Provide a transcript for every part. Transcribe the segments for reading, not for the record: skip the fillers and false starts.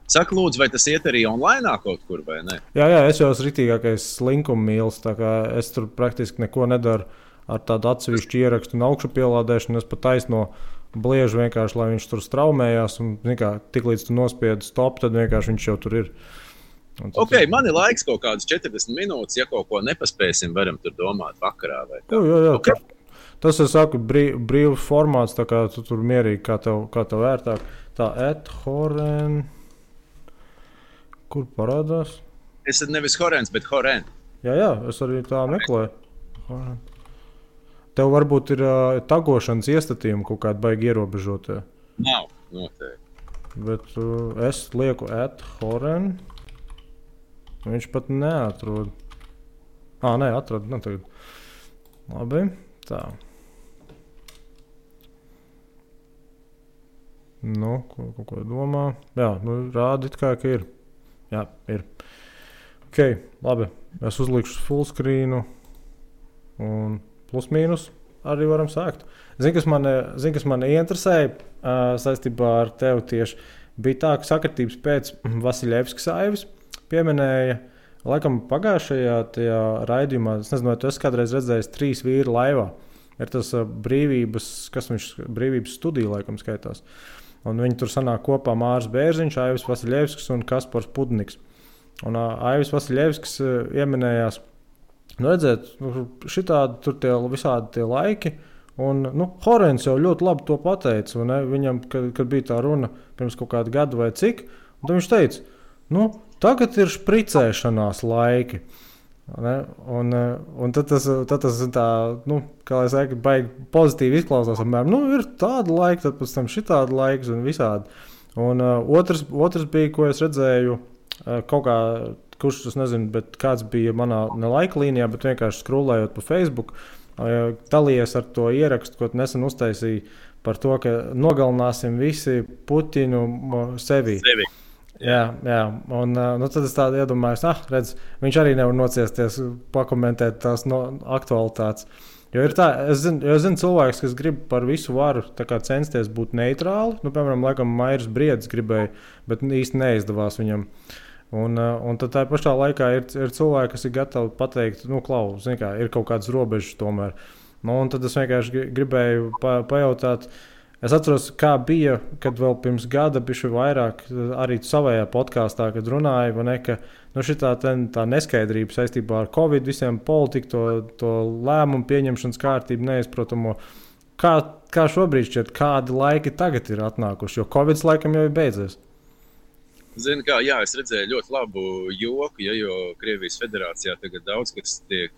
Saka, lūdzu, vai tas iet arī online kaut kur, vai ne? Jā, es jau esmu ritīgākais slinkuma mīlis, tā kā es tur praktiski neko nedaru ar tādu atsevišķu ierakstu un augšu pielādēšanu. Es pat taisno bliežu vienkārši, lai viņš tur straumējās. Un, tik līdz tu nospiedi stop, tad vienkārši viņš jau tur ir. Ok, man ir laiks kaut kādas 40 minūtes. Ja kaut ko nepaspēsim, varam tur domāt vakarā. Jā. Okay. Tas ir brīvs formāts, tā kā tu tur mierīgi, kā tev vērtāk. Tā Horen. Kur parādās? Es nevis Horens, bet Horen. Jā, es arī tā meklēju. Horen. Tev varbūt ir tagošanas iestatījumi kaut kādi baigi ierobežotie. Nav, noteikti. Bet es lieku Horen. Viņš pat neatrod. Nē, atrod. Nu, tagad. Labi, tā. Nu, ko domā? Jā, rāda it kā, ka ir. Jā, ir. Ok, labi. Es uzlikšu fullscreenu un plus mīnus arī varam sākt. Zini, kas man interesēja saistībā ar tevi tieši, bija tā, ka sakritības pēc Vasiljevskas aivis pieminēja, laikam pagājušajā tajā raidījumā, es nezinu, vai tu esi kādreiz redzējis 3 vīri laivā. Ir tas brīvības studija, laikam skaitās. Un viņi tur sanāk kopā Māris Bērziņš, Aivis Vasiljevskis un Kaspars Pudniks. Un Aivis Vasiljevskis ieminējās, redzēt, šitādi tur visādi tie laiki, un Horens jau ļoti labi to pateica, un viņam, kad bija tā runa pirms kaut kāda gada vai cik, un tad viņš teica, tagad ir špricēšanās laiki. Un tad tas tā, kā lai saka, baigi pozitīvi izklausās. Ir tāda laika, tad pēc tam šitāda laiks un visādi. Un otrs bija, ko es redzēju, kaut kā, kurš tas nezinu, bet kāds bija manā ne laika līnijā, bet vienkārši skrūlējot pa Facebook, dalījies ar to ierakstu, ko nesen uztaisīja par to, ka nogalināsim visi Putinu sevi. Jā, un tad es tādu iedomājos, redz, viņš arī nevar nociesties, pakomentēt tās aktualitātes. Jo ir tā, es zinu cilvēks, kas grib par visu varu censties būt neitrāli. Piemēram, laikam Mairis Briedis gribēja, bet īsti neizdevās viņam. Un tad tā pašā laikā ir cilvēki, kas ir gatavi pateikt, klau, zini kā, ir kaut kādas robežas tomēr. Un tad es vienkārši gribēju pajautāt. Es atceros, kā bija, kad vēl pirms gada bišķi vairāk arī savējā podkāstā, kad runāja, ka šitā tā neskaidrība saistībā ar Covid, visiem politiku, to lēmumu pieņemšanas kārtību neizprotamo. Kā šobrīd šķiet, kādi laiki tagad ir atnākuši, jo Covid laikam jau ir beidzies? Zini kā, jā, es redzēju ļoti labu joku, jo Krievijas federācijā tagad daudz kas tiek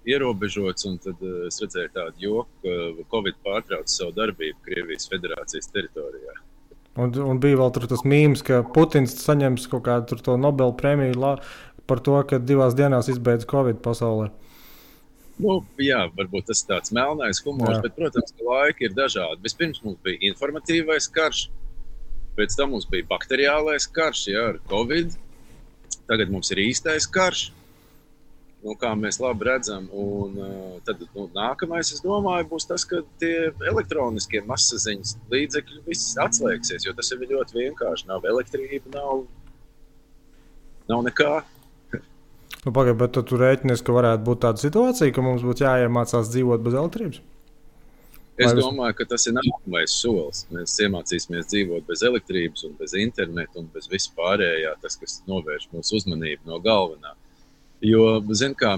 ierobežots, un tad es redzēju tādu joku, ka Covid pārtrauc savu darbību Krievijas federācijas teritorijā. Un bija vēl tas mīms, ka Putins saņems kaut kādu to Nobel prēmiju par to, ka 2 dienās izbeidz Covid pasaulē. Jā, varbūt tas ir tāds melnais humors, bet, protams, ka laiki ir dažādi. Vispirms mums bija informatīvais karš, pēc tam mums bija bakteriālais karš, ar Covid. Tagad mums ir īstais karš. Kā mēs labi redzam, un tad nākamais, es domāju, būs tas, ka tie elektroniskie masaziņas līdzekļi viss atslēgsies, jo tas ir ļoti vienkārši. Nav elektrība, nav nekā. Pagaid, bet tu rēķinies, ka varētu būt tāda situācija, ka mums būtu jāiemācās dzīvot bez elektrības? Es domāju, ka tas ir nākamais solis. Mēs iemācīsimies dzīvot bez elektrības un bez interneta un bez vispārējā, tas, kas novērš mūsu uzmanību no galvenā. Jo, zin kā,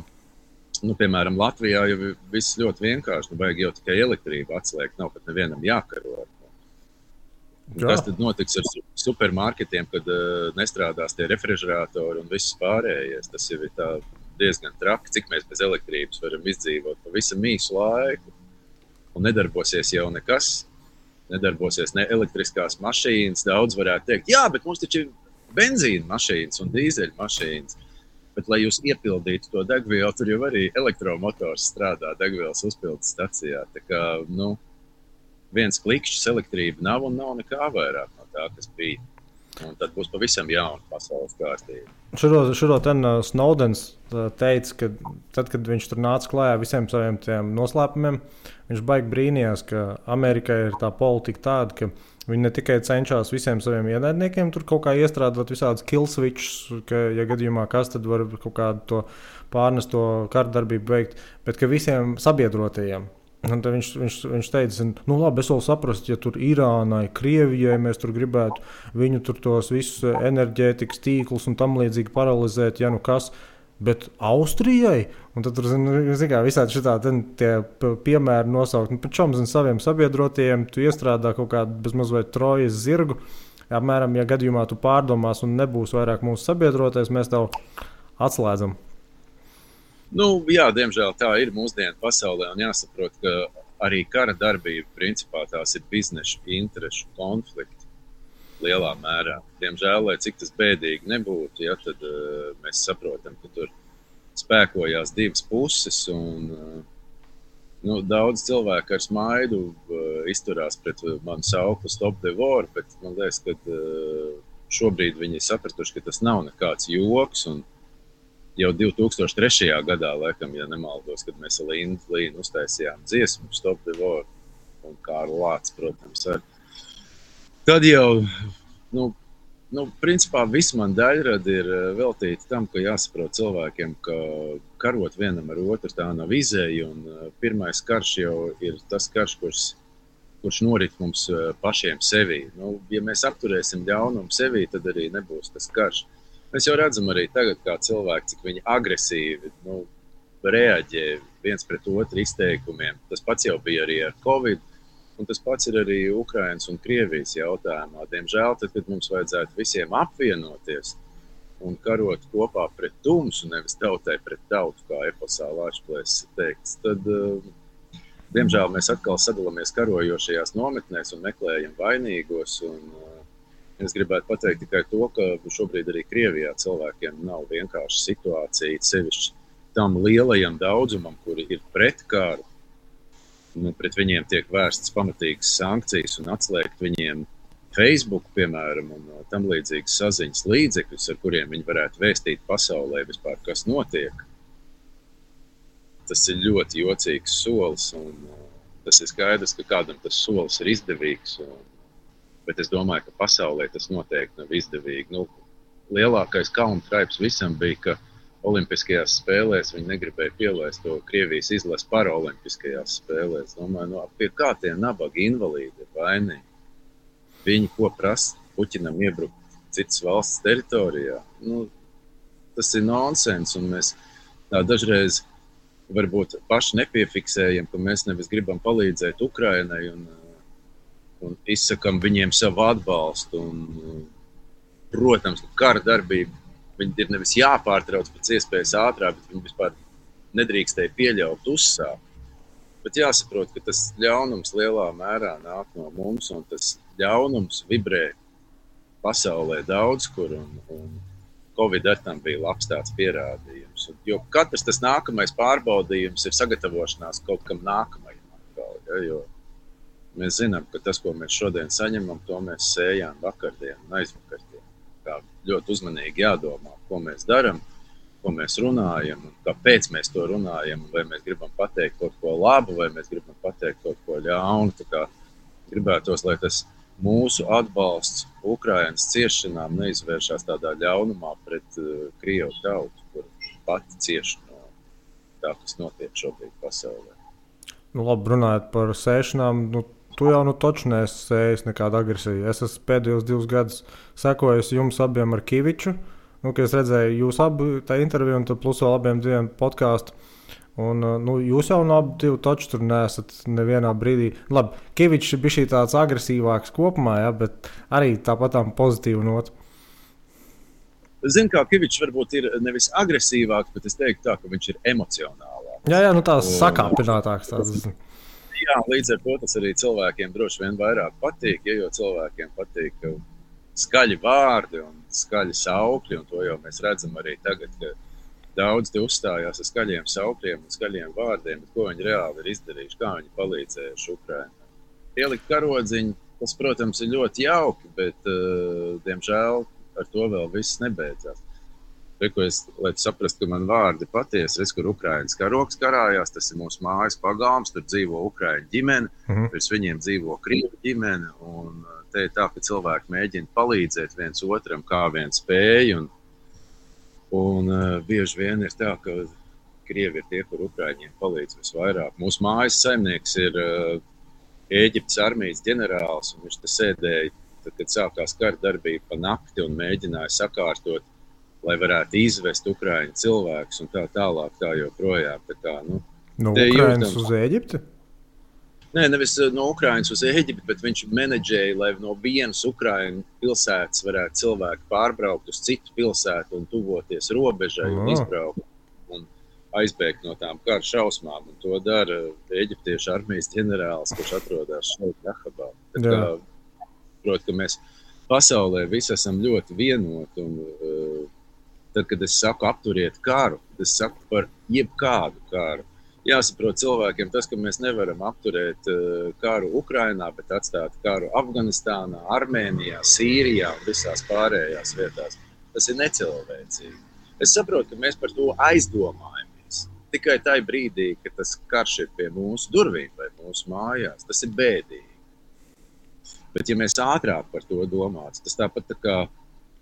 piemēram, Latvijā jau viss ļoti vienkārši, vajag jau tikai elektrību atslēgt, nav pat nevienam jākaro. Kas tad notiks ar supermarketiem, kad nestrādās tie refrižeratori un viss pārējais? Tas jau ir diezgan traki, cik mēs bez elektrības varam izdzīvot pavisam īsu laiku. Un nedarbosies jau nekas, nedarbosies ne elektriskās mašīnas, daudz varētu teikt, jā, bet mums taču ir benzīna mašīnas un dīzeļa mašīnas. Bet, lai jūs iepildītu to degvielu, tur jau arī elektromotors strādā degvielas uzpildes stacijā. Tā kā, viens klikšķis elektrība nav un nav nekā vairāk no tā, kas bija. Un tad būs pavisam jauna pasaules kārtība. Šuro Snowdens teica, ka tad, kad viņš tur nāca klājā visiem saviem tiem noslēpumiem, viņš baigi brīnījās, ka Amerikai ir tā politika tāda, ka viņi ne tikai cenšas visiem saviem ienaidniekiem tur kaut kā iestrādāt visādus kill switches, ka, ja gadījumā kas, tad var kaut kādu to pārnesto kardarbību veikt, bet ka visiem sabiedrotajiem. Un tad viņš teica, nu labi, es vēl saprastu, ja tur Irānai, Krievijai mēs tur gribētu viņu tur tos visus enerģētikas tīklus un tam līdzīgi paralizēt, ja nu kas, bet Austrijai, un tad tur, visādi šitādi tie piemēri nosaukt, nu, čom, saviem sabiedrotajiem, tu iestrādā kaut kādu bezmaz vai trojas zirgu, apmēram, ja gadījumā tu pārdomās un nebūs vairāk mūsu sabiedrotais, mēs tev atslēdzam. Nu, jā, diemžēl tā ir mūsdienu pasaulē, un jāsaprot, ka arī kara darbība principā tās ir biznešu interešu konflikti lielā mērā. Diemžēl, lai cik tas bēdīgi nebūtu, ja, tad mēs saprotam, ka tur spēkojās divas puses, un daudz cilvēku ar smaidu izturās pret manu sauklu Stop the War, bet man liekas, ka šobrīd viņi ir sapratuši, ka tas nav nekāds joks, un jau 2003. Gadā, laikam, ja nemaldos, kad mēs ar Līnu uztaisījām dziesmu Stop the War un Kārli Lācis, protams, ar. Tad jau, principā viss man daļradi ir veltīti tam, ka jāsaprot cilvēkiem, ka karot vienam ar otru tā nav izēja, un pirmais karš jau ir tas karš, kurš norit mums pašiem sevī. Ja mēs apturēsim ļaunumu sevī, tad arī nebūs tas karš. Mēs jau redzam arī tagad, kā cilvēki, cik viņi agresīvi reaģē viens pret otru izteikumiem. Tas pats jau bija arī ar Covid, un tas pats ir arī Ukrainas un Krievijas jautājumā. Diemžēl, tad, kad mums vajadzētu visiem apvienoties un karot kopā pret tumsu, nevis tautai pret tautu, kā eposā Lāčplēsis teikts, tad, diemžēl, mēs atkal sadalāmies karojošajās nometnēs un meklējam vainīgos. Es gribētu pateikt tikai to, ka šobrīd arī Krievijā cilvēkiem nav vienkārši situācija, sevišķi tam lielajam daudzumam, kuri ir pret karu. Pret viņiem tiek vērstas pamatīgas sankcijas un atslēgt viņiem Facebook, piemēram, un tam līdzīgas saziņas līdzekļus, ar kuriem viņi varētu vēstīt pasaulē vispār, kas notiek. Tas ir ļoti jocīgs solis, un tas ir skaidrs, ka kādam tas solis ir izdevīgs. Bet es domāju, ka pasaulē tas noteikti nav izdevīgi. Lielākais kauna traips visam bija, ka Olimpiskajās spēlēs viņi negribēja pielaist to Krievijas izlasi paraolimpiskajās spēlēs. Domāju, pie kā tie nabagi invalīdi ir vainīgi? Viņi ko prasa Puķinam iebrukt citas valsts teritorijā? Tas ir nonsens, un mēs dažreiz varbūt paši nepiefiksējam, ka mēs nevis gribam palīdzēt Ukrainai un izsakam viņiem savu atbalstu. Protams, ka kara darbība viņi ir nevis jāpārtrauc pēc iespējas ātrāk, bet viņi vispār nedrīkstēja pieļaut uzsākt. Bet jāsaprot, ka tas ļaunums lielā mērā nāk no mums, un tas ļaunums vibrē pasaulē daudz kur, un Covid ar tam bija labs tāds pierādījums. Jo katrs tas nākamais pārbaudījums ir sagatavošanās kaut kam nākamajam. Jo mēs zinām, ka tas, ko mēs šodien saņemam, to mēs sējām vakardien un aizvakardien. Tā ļoti uzmanīgi jādomā, ko mēs darām, ko mēs runājam, un kāpēc mēs to runājam, vai mēs gribam pateikt kaut ko labu, vai mēs gribam pateikt kaut ko ļaunu. Tā kā gribētos, lai tas mūsu atbalsts Ukrainas ciešanām neizvēršās tādā ļaunumā pret Krievu tautu, kur pati cieš no tā, kas notiek šobrīd pasaulē. Labi, runājot par sēšanām, tu jau taču neesi sējis nekādu agresiju. Es esmu pēdējos 2 gadus sekojis jums abiem ar Kiviču, kad es redzēju jūs abi tā interviju un plus vēl abiem 2 podkāstu. Un, jūs jau no abi 2 taču tur neesat nevienā brīdī. Labi, Kivičs bija šī tāds agresīvāks kopumā, ja, bet arī tāpatām pozitīvu notu. Zinu, kā Kivičs varbūt ir nevis agresīvāks, bet es teiktu tā, ka viņš ir emocionālāks. Jā, tās sakāpinātāks. Jā, līdz ar to tas arī cilvēkiem droši vien vairāk patīk, jo cilvēkiem patīk skaļi vārdi un skaļi saukļi, un to jau mēs redzam arī tagad, ka daudz te uzstājās ar skaļiem saukļiem un skaļiem vārdiem, bet ko viņi reāli ir izdarījuši, kā viņi palīdzējuši Ukrainai. Ielikt karodziņu, Tas, protams, ir ļoti jauki, bet, diemžēl, ar to vēl viss nebeidzās. Lai tu saprastu, ka man vārdi patiesi, kur Ukrainas karoks karājās, tas ir mūsu mājas pagalms, tur dzīvo Ukraiņu ģimene, virs viņiem dzīvo Krievu ģimene, un te ir tā, ka cilvēki mēģina palīdzēt viens otram, kā vien spēj, un bieži vien ir tā, ka Krievi ir tie, kur Ukraiņiem palīdz visvairāk. Mūsu mājas saimnieks ir Ēģiptes armijas ģenerālis, un viņš te sēdēja, tad, kad sākās kara darbība pa nakti un mēģināja sakārtot, lai varētu izvest Ukraiņu cilvēkus un tā tālāk, tā joprojām. Tā kā, no Ukrainas uz Ēģipti? Nē, nevis no Ukrainas uz Ēģipti, bet viņš menedžēja, lai no vienas Ukraiņu pilsētas varētu cilvēki pārbraukt uz citu pilsētu un tuvoties robežai un izbraukt un aizbēgt no tām kara šausmām. Un to dara Ēģiptiešu armijas ģenerālis, kurš atrodas šeit Rahabā. Tā kā, protams, ka mēs pasaulē visi esam ļoti vienoti un tad, kad es saku apturiet karu, tad es saku par jebkādu karu. Jāsaprot cilvēkiem tas, ka mēs nevaram apturēt karu Ukrainā, bet atstāt karu Afganistānā, Armēnijā, Sīrijā un visās pārējās vietās. Tas ir necilvēcīgi. Es saprotu, ka mēs par to aizdomājamies. Tikai tajā brīdī, ka tas karš ir pie mūsu durvīm vai mūsu mājās, tas ir bēdīgi. Bet ja mēs ātrāk par to domātu, tas tāpat tā kā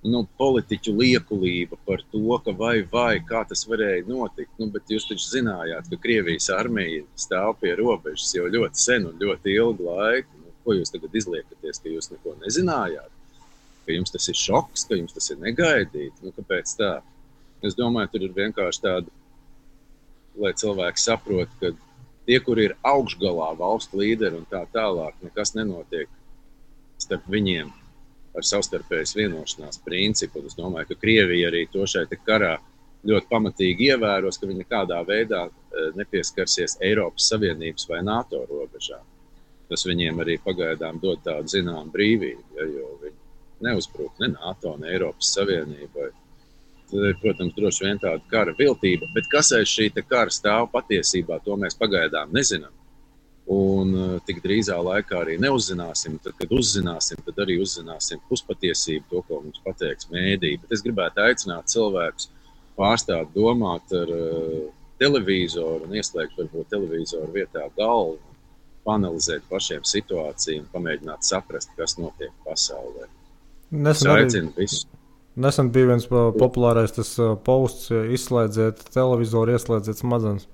politiķu liekulība par to, ka vai, kā tas varēja notikt. Bet jūs taču zinājāt, ka Krievijas armija stāv pie robežas jau ļoti sen un ļoti ilgu laiku. Ko jūs tagad izliekaties, ka jūs neko nezinājāt? Ka jums tas ir šoks, ka jums tas ir negaidīti? Kāpēc tā? Es domāju, tur ir vienkārši tāda, lai cilvēki saprot, ka tie, kur ir augšgalā valstu līderi un tā tālāk, nekas nenotiek starp viņiem ar savstarpējas vienošanās principu. Es domāju, ka Krievija arī to šeit karā ļoti pamatīgi ievēros, ka viņi nekādā veidā nepieskarsies Eiropas Savienības vai NATO robežām. Tas viņiem arī pagaidām dod tādu zinām brīvību, jo viņi neuzbruk ne NATO, ne Eiropas Savienībai. Tad ir, protams, droši vien tāda kara viltība, bet kas aiz šī kara stāv patiesībā, to mēs pagaidām nezinām. Un tik drīzā laikā arī neuzzināsim. Tad, kad uzzināsim, tad arī uzzināsim puspatiesību, to, ko mums pateiks mēdī. Bet es gribētu aicināt cilvēkus pārstāt domāt ar televizoru un ieslēgt varbūt televizoru vietā galvu, panalizēt pašiem situāciju un pamēģināt saprast, kas notiek pasaulē. Nesen bija viens populārais tas posts, izslēdziet televizoru, ieslēdziet smadzenes.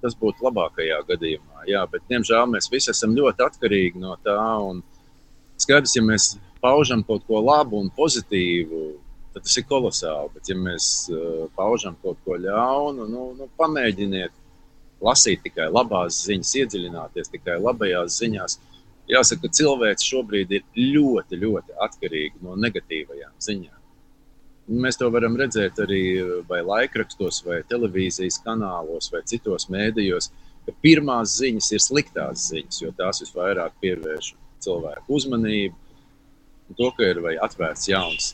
Tas būtu labākajā gadījumā, jā, bet, diemžēl, mēs visi esam ļoti atkarīgi no tā, un skaidrs, ja mēs paužam kaut ko labu un pozitīvu, tad tas ir kolosāli, bet ja mēs paužam kaut ko ļaunu, pamēģiniet lasīt tikai labās ziņas, iedziļināties tikai labajās ziņās. Jāsaka, ka cilvēks šobrīd ir ļoti, ļoti atkarīgi no negatīvajām ziņām. Mēs to varam redzēt arī vai laikrakstos, vai televīzijas kanālos, vai citos mēdījos, ka pirmās ziņas ir sliktās ziņas, jo tās visvairāk pievērš cilvēku uzmanību. Un to, ka ir vai atvērts jauns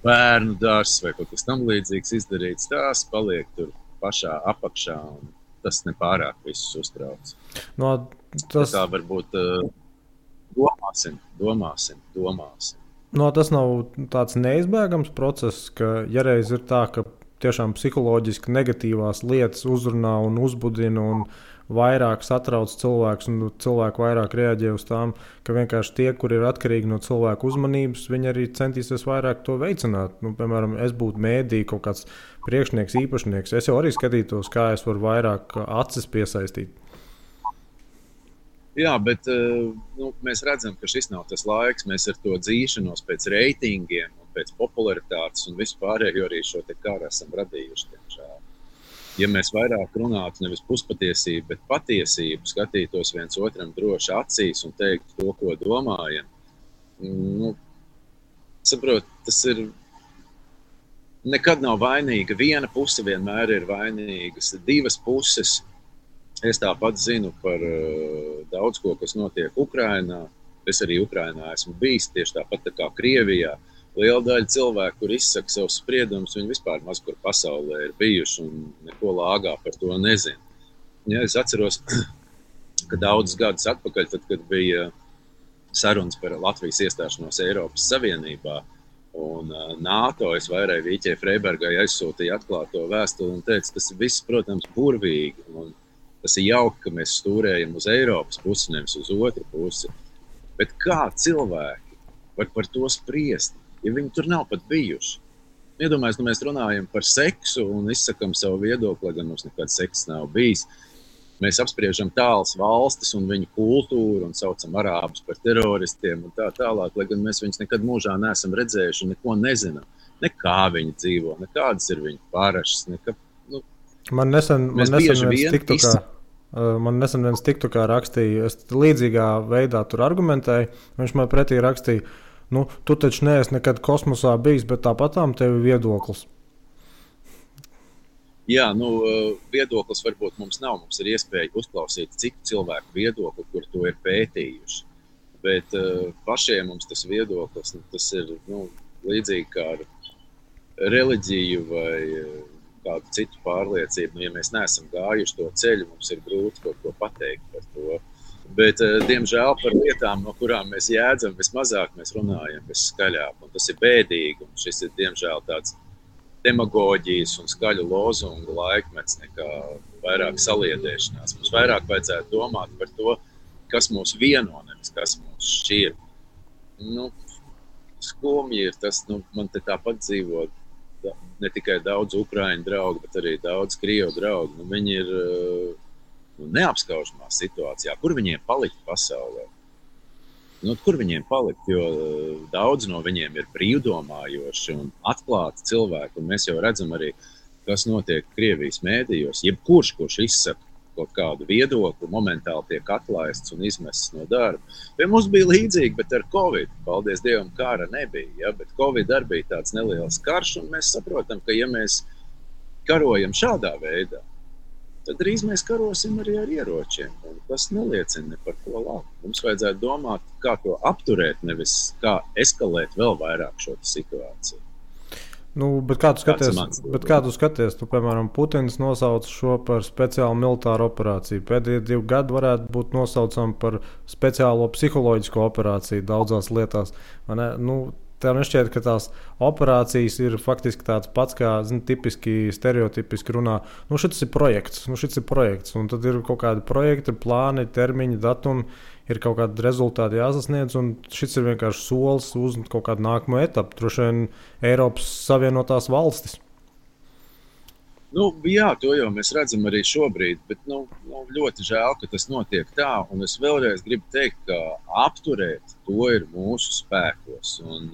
bērnu dārzs vai kaut kas tam līdzīgs izdarīts, tās paliek tur pašā apakšā, un tas nepārāk visus uztrauc. Tā varbūt domāsim. Tas nav tāds neizbēgams process, ka ja reiz ir tā, ka tiešām psiholoģiski negatīvās lietas uzrunā un uzbudina un vairāk satrauc cilvēkus un cilvēku vairāk reaģē uz tām, ka vienkārši tie, kuri ir atkarīgi no cilvēku uzmanības, viņi arī centīsies vairāk to veicināt. Piemēram, es būtu mēdī kaut kāds priekšnieks, īpašnieks, es jau arī skatītos, kā es varu vairāk acis piesaistīt. Jā, bet mēs redzam, ka šis nav tas laiks. Mēs ar to dzīšanos pēc reitingiem un pēc popularitātes un vispārējo arī šo te karu esam radījuši. Tiemžēl. Ja mēs vairāk runātu nevis puspatiesību, bet patiesību, skatītos viens otram droši acīs un teiktu to, ko domājam, saprot, tas ir nekad nav vainīga. Viena puse vienmēr ir vainīgas, divas puses. Es tāpat zinu par daudz ko, kas notiek Ukrainā. Es arī Ukrainā esmu bijis tieši tāpat tā kā Krievijā. Liela daļa cilvēku, kur izsaka savus spriedumus, viņi vispār maz kur pasaulē ir bijuši un neko lāgā par to nezinu. Ja, es atceros, ka daudzus gadus atpakaļ, tad, kad bija sarunas par Latvijas iestāšanos Eiropas Savienībā. Un NATO es vairāk Vīķei Freibergai aizsūtīju atklāto vēstuli un teicu, tas viss, protams, burvīgi. Un tas ir jauki, ka mēs stūrējam uz Eiropas pusi, nevis uz otru pusi. Bet kā cilvēki var par to spriest, ja viņi tur nav pat bijuši? Iedomājies, mēs runājam par seksu un izsakam savu viedokli, gan mums nekad seks nav bijis. Mēs apspriežam tālas valstis un viņu kultūru un saucam arābus par teroristiem un tā tālāk, lai gan mēs viņus nekad mūžā neesam redzējuši un neko nezinām. Ne kā viņi dzīvo, ne kādas ir viņu parašas. Man nesen viens TikTokā rakstīja, es līdzīgā veidā tur argumentēju, viņš man pretī rakstīja, tu taču neesi nekad kosmosā bijis, bet tāpatām tev ir viedoklis. Jā, viedoklis varbūt mums nav. Mums ir iespēja uzklausīt citu cilvēku viedokli, kur to ir pētījuši. Bet pašiem mums tas viedoklis, tas ir līdzīgi kā ar reliģiju vai kādu citu pārliecību. Ja mēs neesam gājuši to ceļu, mums ir grūti kaut ko pateikt par to. Bet, diemžēl, par lietām, no kurām mēs jēdzam vismazāk, mēs runājam visskaļāk. Un tas ir bēdīgi. Un šis ir, diemžēl, tāds demagoģijas un skaļu lozungu laikmets nekā vairāk saliedēšanās. Mums vairāk vajadzētu domāt par to, kas mūs vieno, nevis kas mūs šķir. Skumji ir tas, man te tāpat dzīvo ne tikai daudz Ukraiņu draugu, bet arī daudz Krievu draugu. Viņi ir neapskaužamā situācijā. Kur viņiem palikt pasaulē? Kur viņiem palikt, jo daudz no viņiem ir brīvdomājoši un atklāti cilvēki. Un mēs jau redzam arī, kas notiek Krievijas mēdījos. Jebkurš, kurš izsaka kaut kādu viedokli, momentāli tiek atlaists un izmests no darba. Pie mums bija līdzīgi, bet ar Covid, paldies Dievam, kara nebija. Ja? Bet Covid arī bija tāds neliels karš, un mēs saprotam, ka ja mēs karojam šādā veidā, tad drīz mēs karosim arī ar ieročiem. Un tas neliecina ne par ko labu. Mums vajadzētu domāt, kā to apturēt, nevis kā eskalēt vēl vairāk šo situāciju. Bet kā tu skaties? Piemēram, Putins nosauca šo par speciālu militāru operāciju. Pēdējie 2 gadi varētu būt nosaucami par speciālo psiholoģisko operāciju daudzās lietās. Tev nešķiet, ka tās operācijas ir faktiski tāds pats, kā tipiski, stereotipiski runā. Šis ir projekts, un tad ir kaut kādi projekti, plāni, termiņi, datumi, ir kaut kādi rezultāti jāsasniedz, un šis ir vienkārši solis uz kaut kādu nākamo etapu, droši vien Eiropas Savienotās valstis. Jā, to jau mēs redzam arī šobrīd, bet ļoti žēl, ka tas notiek tā, un es vēlreiz gribu teikt, ka apturēt to ir mūsu spēkos. Un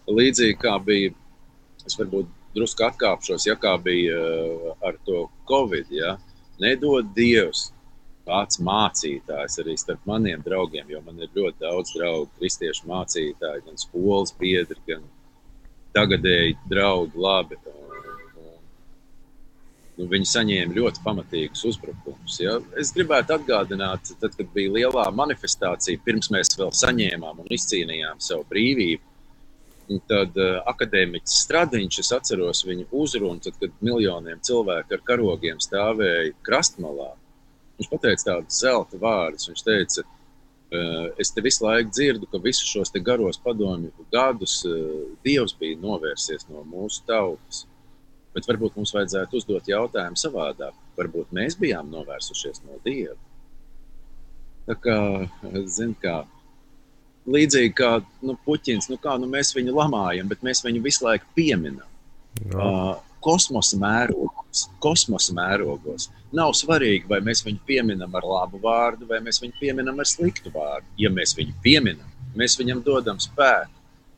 līdzīgi kā bija, es varbūt drusku atkāpšos, kā bija ar to Covid, nedod Dievs kāds mācītājs arī starp maniem draugiem, jo man ir ļoti daudz draugu, kristiešu mācītāji, gan skolas biedri, gan tagadēji draugi labi. Viņi saņēma ļoti pamatīgus uzbrukumus. Ja? Es gribētu atgādināt, tad, kad bija lielā manifestācija, pirms mēs vēl saņēmām un izcīnījām savu brīvību, tad akadēmiķis Stradiņš, es atceros viņu uzrunu, tad, kad miljoniem cilvēku ar karogiem stāvēja krastmalā. Viņš pateica tādus zelta vārdus. Viņš teica, es te visu laiku dzirdu, ka visus šos te garos padomju gadus Dievs bija novērsies no mūsu tautas. Bet varbūt mums vajadzētu uzdot jautājumu savādāk. Varbūt mēs bijām novērsušies no Dieva. Tā kā, līdzīgi kā Puķins, mēs viņu lamājam, bet mēs viņu visu laiku pieminam. Kosmosa mērogos. Nav svarīgi, vai mēs viņu pieminam ar labu vārdu, vai mēs viņu pieminam ar sliktu vārdu. Ja mēs viņu pieminam, mēs viņam dodam spēku.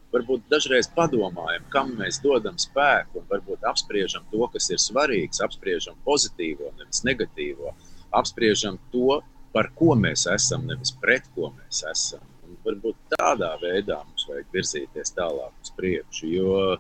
Varbūt dažreiz padomājam, kam mēs dodam spēku, un varbūt apspriežam to, kas ir svarīgs, apspriežam pozitīvo, nevis negatīvo, apspriežam to, par ko mēs esam, nevis pret ko mēs esam. Un varbūt tādā veidā mums vajag virzīties tālāk uz priekšu, jo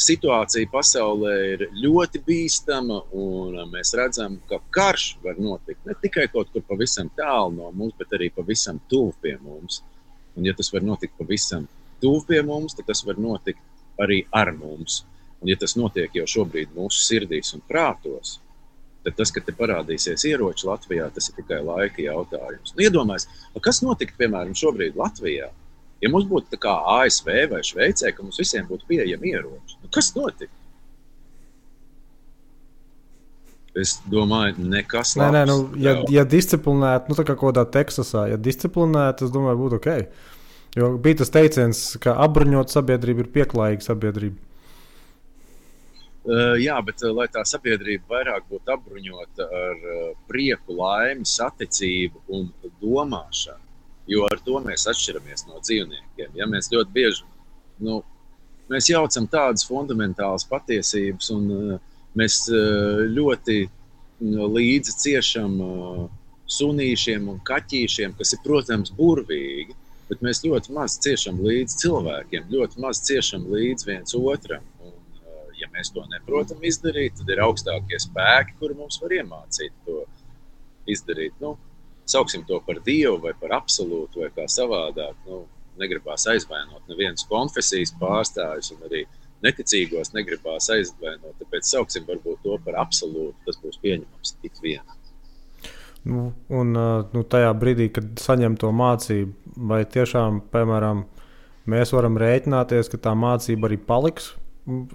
situācija pasaulē ir ļoti bīstama, un mēs redzam, ka karš var notikt ne tikai kaut kur pavisam tālu no mums, bet arī pavisam tuvu pie mums. Un ja tas var notikt pavisam tuvu pie mums, tad tas var notikt arī ar mums. Un ja tas notiek jau šobrīd mūsu sirdīs un prātos, tad tas, ka te parādīsies ieroči Latvijā, tas ir tikai laika jautājums. Nu, iedomājies, kas notiktu, piemēram, šobrīd Latvijā? Ja mums būtu tā kā ASV vai Šveicē, ka mums visiem būtu pieejami ieroči, nu, kas notiktu? Es domāju, nekas labs. Nē, ja disciplinēti, tā kā kodā Teksasā, ja disciplinēti, es domāju, būtu ok. Jo bija tas teiciens, ka apbruņot sabiedrība ir pieklājīga sabiedrība. Jā, bet lai tā sabiedrība vairāk būtu apbruņota ar prieku, laimi, saticību un domāšanu, jo ar to mēs atšķiramies no dzīvniekiem. Ja mēs ļoti bieži mēs jaucam tādas fundamentālas patiesības, un mēs ļoti līdzi ciešam sunīšiem un kaķīšiem, kas ir, protams, burvīgi, bet mēs ļoti maz ciešam līdzi cilvēkiem, ļoti maz ciešam līdzi viens otram. Un, ja mēs to neprotam izdarīt, tad ir augstākie spēki, kuri mums var iemācīt to izdarīt. Sauksim to par Dievu vai par absolūtu vai kā savādāk. Negribās aizvainot nevienas konfesijas pārstāvjus un arī neticīgos negribās aizvainot. Tāpēc sauksim varbūt to par absolūtu. Tas būs pieņemams tik vienam. Tajā brīdī, kad saņem to mācību, vai tiešām, piemēram, mēs varam rēķināties, ka tā mācība arī paliks?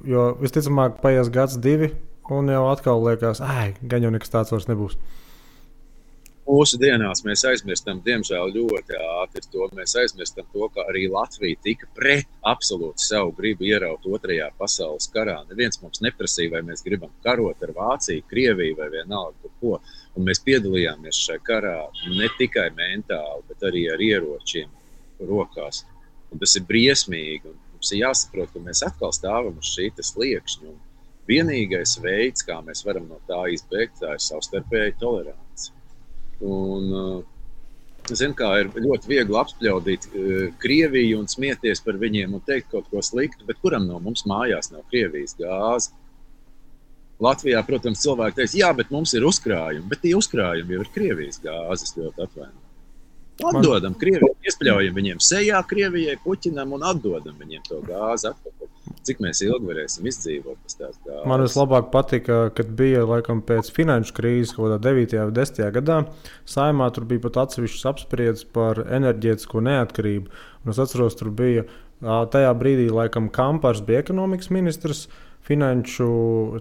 Jo visticamāk paies gads, 2, un jau atkal liekas, gan jau nekas tāds vairs nebūs. Mūsu dienās mēs aizmirstam, diemžēl, ļoti ātri to. Mēs aizmirstam to, ka arī Latvija tika pret absolūti savu gribu ieraut 2. pasaules karā. Neviens mums neprasīja, vai mēs gribam karot ar Vāciju, Krieviju vai vienalga ko. Un mēs piedalījāmies šajā karā ne tikai mentāli, bet arī ar ieročiem rokās. Un tas ir briesmīgi. Un mums ir jāsaprot, ka mēs atkal stāvam uz šī sliekšņa. Un vienīgais veids, kā mēs varam no tā izbēgt, tā ir savstarpēja tolerance. Un, kā ir ļoti viegli apspļaudīt Krieviju un smieties par viņiem un teikt kaut ko sliktu, bet kuram no mums mājās nav Krievijas gāze? Latvijā, protams, cilvēki teiks, jā, bet mums ir uzkrājumi, bet tie uzkrājumi jau ir Krievijas gāzes, ļoti atvainojami. Atdodam Krievijai, iespļaujam viņiem sejā Krievijai, Puķinam un atdodam viņiem to gāzi atpakaļ. Cik mēs ilgi varēsim izdzīvot pēc tās gāzes? Man vislabāk patika, kad bija laikam pēc finanšu krīzes, kaut kādā 9. vai 10. gadā, Saeimā tur bija pat atsevišķas apspriedzes par enerģētisko neatkarību. Un es atceros, tur bija tajā brīdī laikam Kampars bija ekonomikas ministrs, finanšu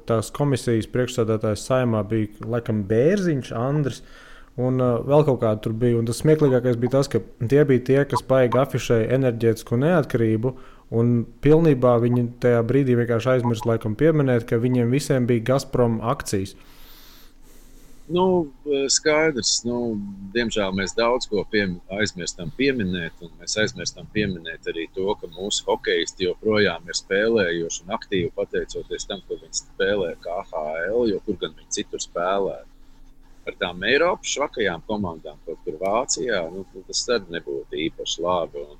tās komisijas priekšsēdētājs Saeimā bija laikam Bērziņš, Andris. Un vēl kaut kāda tur bija. Un tas smieklīgākais bija tas, ka tie bija tie, kas baigi afišēja enerģētisko neatkarību, un pilnībā viņi tajā brīdī vienkārši aizmirst laikam pieminēt, ka viņiem visiem bija Gazprom akcijas. Skaidrs. Diemžēl mēs daudz ko aizmirstam pieminēt, un mēs aizmirstam pieminēt arī to, ka mūsu hokeisti joprojām ir spēlējuši un aktīvi pateicoties tam, ko viņi spēlē KHL, jo kur gan viņi citur spēlē. Ar tām Eiropas švakajām komandām, kaut kur Vācijā, tas tad nebūtu īpaši labi. Un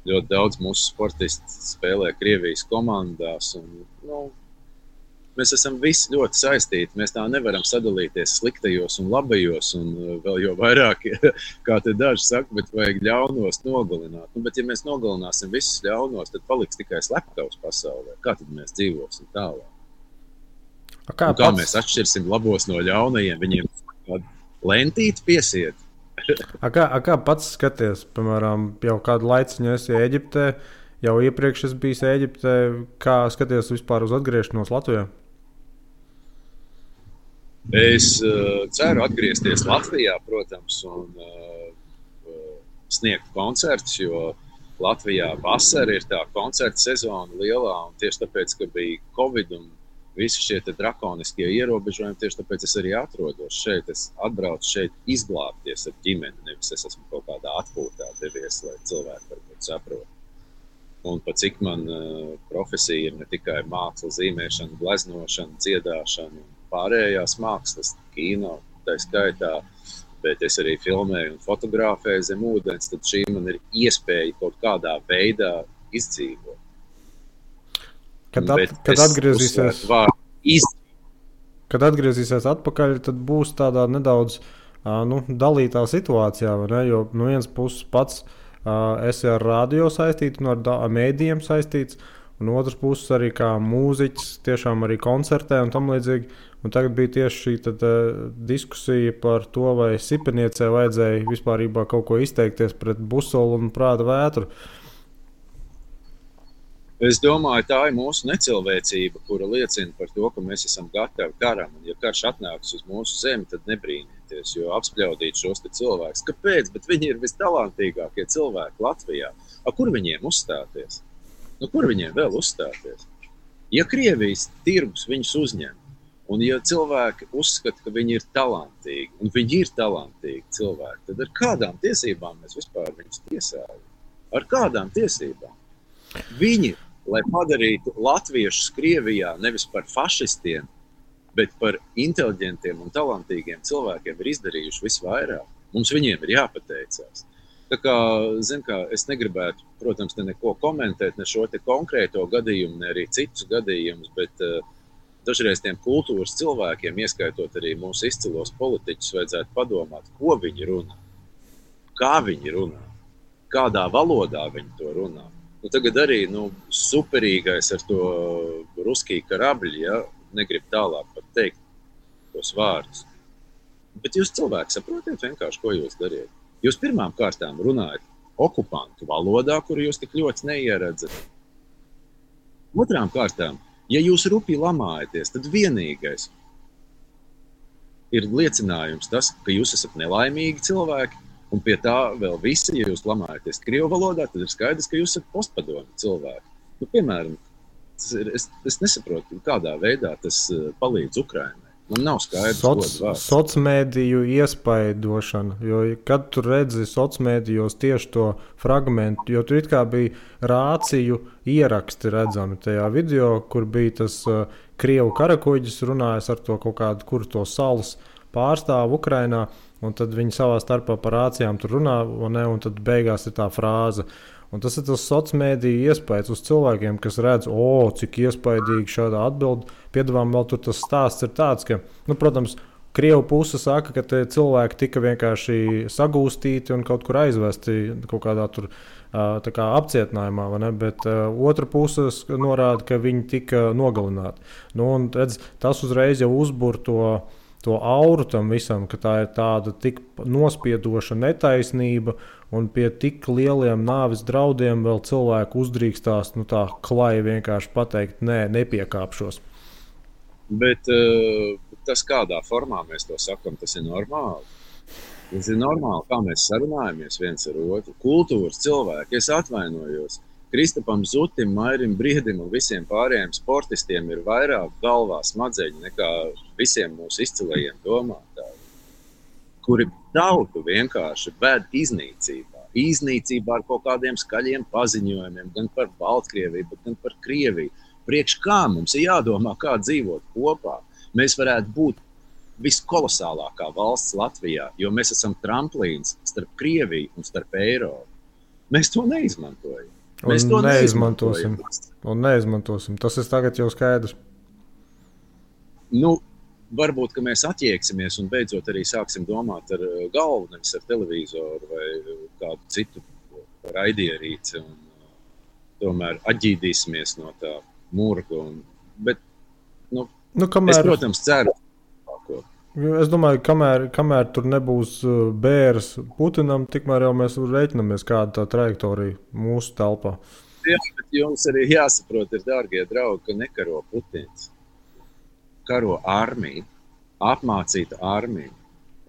ļoti daudz mūsu sportisti spēlē Krievijas komandās. Un, mēs esam visi ļoti saistīti. Mēs tā nevaram sadalīties sliktajos un labajos, un vēl jau vairāk, kā te daži saka, bet vajag ļaunos nogalināt. Bet ja mēs nogalināsim visus ļaunos, tad paliks tikai slepkavs pasaulē. Kā tad mēs dzīvosim tālāk? Kā mēs atšķirsim labos no ļaunajiem? Viņiem lentīti piesiet. Kā pats skaties, piemēram, jau kādu laiciņu esi Ēģiptē, jau iepriekš es biju Ēģiptē, kā skaties vispār uz atgriešanos Latvijā? Es ceru atgriezties Latvijā, protams, un sniegt koncertus, jo Latvijā vasara ir tā koncerta sezona lielā, un tieši tāpēc, ka bija Covid un visi šie drakoniskie ierobežojumi, tieši tāpēc es arī atrodos šeit. Es atbraucu šeit izglābties ar ģimeni, nevis es esmu kaut kādā atpūtā devies, lai cilvēki varbūt saprot. Un pat cik man profesija ir ne tikai māksla, zīmēšana, gleznošana, dziedāšana un pārējās mākslas, kino, tā skaitā, bet es arī filmēju un fotografēju zem ūdens, tad šī man ir iespēja kaut kādā veidā izdzīvot. Kad atgriezīsies atpakaļ, tad būs tādā nedaudz dalītā situācijā, vai ne? Jo no vienas puses pats esi ar radio saistīts un ar mēdījiem saistīts, un otrs puses arī kā mūziķis, tiešām arī koncertē un tam līdzīgi. Un tagad bija tieši šī diskusija par to, vai Sipeniecē vajadzēja vispārībā kaut ko izteikties pret Busolu un Prāta vētru. Es domāju, tā ir mūsu necilvēcība, kura liecina par to, ka mēs esam gatavi karam. Un, ja karš atnāks uz mūsu zemi, tad nebrīnieties, jo apspļaudīt šos te cilvēkus. Kāpēc? Bet viņi ir vistalantīgākie cilvēki Latvijā. Kur viņiem uzstāties? Kur viņiem vēl uzstāties? Ja Krievijas tirgus viņus uzņem, un ja cilvēki uzskata, ka viņi ir talantīgi, un viņi ir talantīgi cilvēki, tad ar kādām tiesībām mēs vispār viņus tiesājam? Ar kādām tiesībām? Viņi, lai padarītu latviešus Krievijā nevis par fašistiem, bet par inteliģentiem un talantīgiem cilvēkiem ir izdarījuši visvairāk. Mums viņiem ir jāpateicās. Tā kā, es negribētu, protams, te neko komentēt, ne šo te konkrēto gadījumu, ne arī citus gadījumus, bet dažreiz tiem kultūras cilvēkiem, ieskaitot arī mūsu izcilos politiķus, vajadzētu padomāt, ko viņi runā, kā viņi runā, kādā valodā viņi to runā. Tagad arī superīgais ar to ruskiju karabļi, ja, negrib tālāk pat teikt tos vārdus. Bet jūs cilvēki saprotiet vienkārši, ko jūs dariet. Jūs pirmām kārtām runājat okupantu valodā, kuru jūs tik ļoti neieredzat. Otrām kārtām, ja jūs rupi lamājaties, tad vienīgais ir liecinājums tas, ka jūs esat nelaimīgi cilvēki, un pie tā vēl visi, ja jūs lamājaties krievu valodā, tad ir skaidrs, ka jūs esat postpadomi cilvēki. Piemēram, es nesaprotu, kādā veidā tas palīdz Ukrainai. Man nav skaidrs, Sociālmediju iespaidošana, jo kad tu redzi sociālmedijos tieši to fragmentu, jo tur it kā bija rāciju ieraksti redzami tajā video, kur bija tas krievu karakuģis runājis ar to kaut kādu, kur to salas pārstāvu Ukrainā, un tad viņi savā starpā par rācijām tur runā, un tad beigās ir tā frāze. Un tas ir tas sociālmediju iespējas uz cilvēkiem, kas redz, cik iespaidīgi šādā atbildi. Piedāvām vēl tur tas stāsts ir tāds, ka, protams, Krievu puse saka, ka tie cilvēki tika vienkārši sagūstīti un kaut kur aizvesti kaut kādā tur tā kā apcietinājumā, vai ne? Bet otra puse norāda, ka viņi tika nogalināti. Un redz, tas uzreiz jau uzbur to auru tam visam, ka tā ir tāda tik nospiedoša netaisnība, un pie tik lieliem nāves draudiem vēl cilvēku uzdrīkstās tā klai vienkārši pateikt, nē, nepiekāpšos. Bet tas, kādā formā mēs to sakam, tas ir normāli. Tas ir normāli, kā mēs sarunājamies viens ar otru. Kultūras cilvēki, es atvainojos. Kristapam Zutim, Mairim Briedim un visiem pārējiem sportistiem ir vairāk galvā smadzeņi nekā visiem mūsu izcilajiem domātājiem, kuri tautu vienkārši ved iznīcībā. Iznīcībā ar kaut kādiem skaļiem paziņojumiem, gan par Baltkrieviju, gan par Krieviju. Priekš kā mums ir jādomā, kā dzīvot kopā. Mēs varētu būt viskolosālākā valsts Latvijā, jo mēs esam tramplīns starp Krieviju un starp Eiropu. Mēs to neizmantojam. Mēs to neizmantosim. Un neizmantosim. Tas ir tagad jau skaidrs. Varbūt, ka mēs atjieksimies un beidzot arī sāksim domāt ar galvu, nevis ar televizoru vai kādu citu raidierīci. Un tomēr atģīdīsimies no tā murga. Bet, kamēr... es, protams, ceru. Es domāju, kamēr tur nebūs bērs Putinam, tikmēr jau mēs rēķinamies kāda tā trajektorija mūsu telpā. Jā, bet jums arī jāsaprot, ir, dārgie draugi, ka nekaro Putins. Karo armiju, apmācīta armija.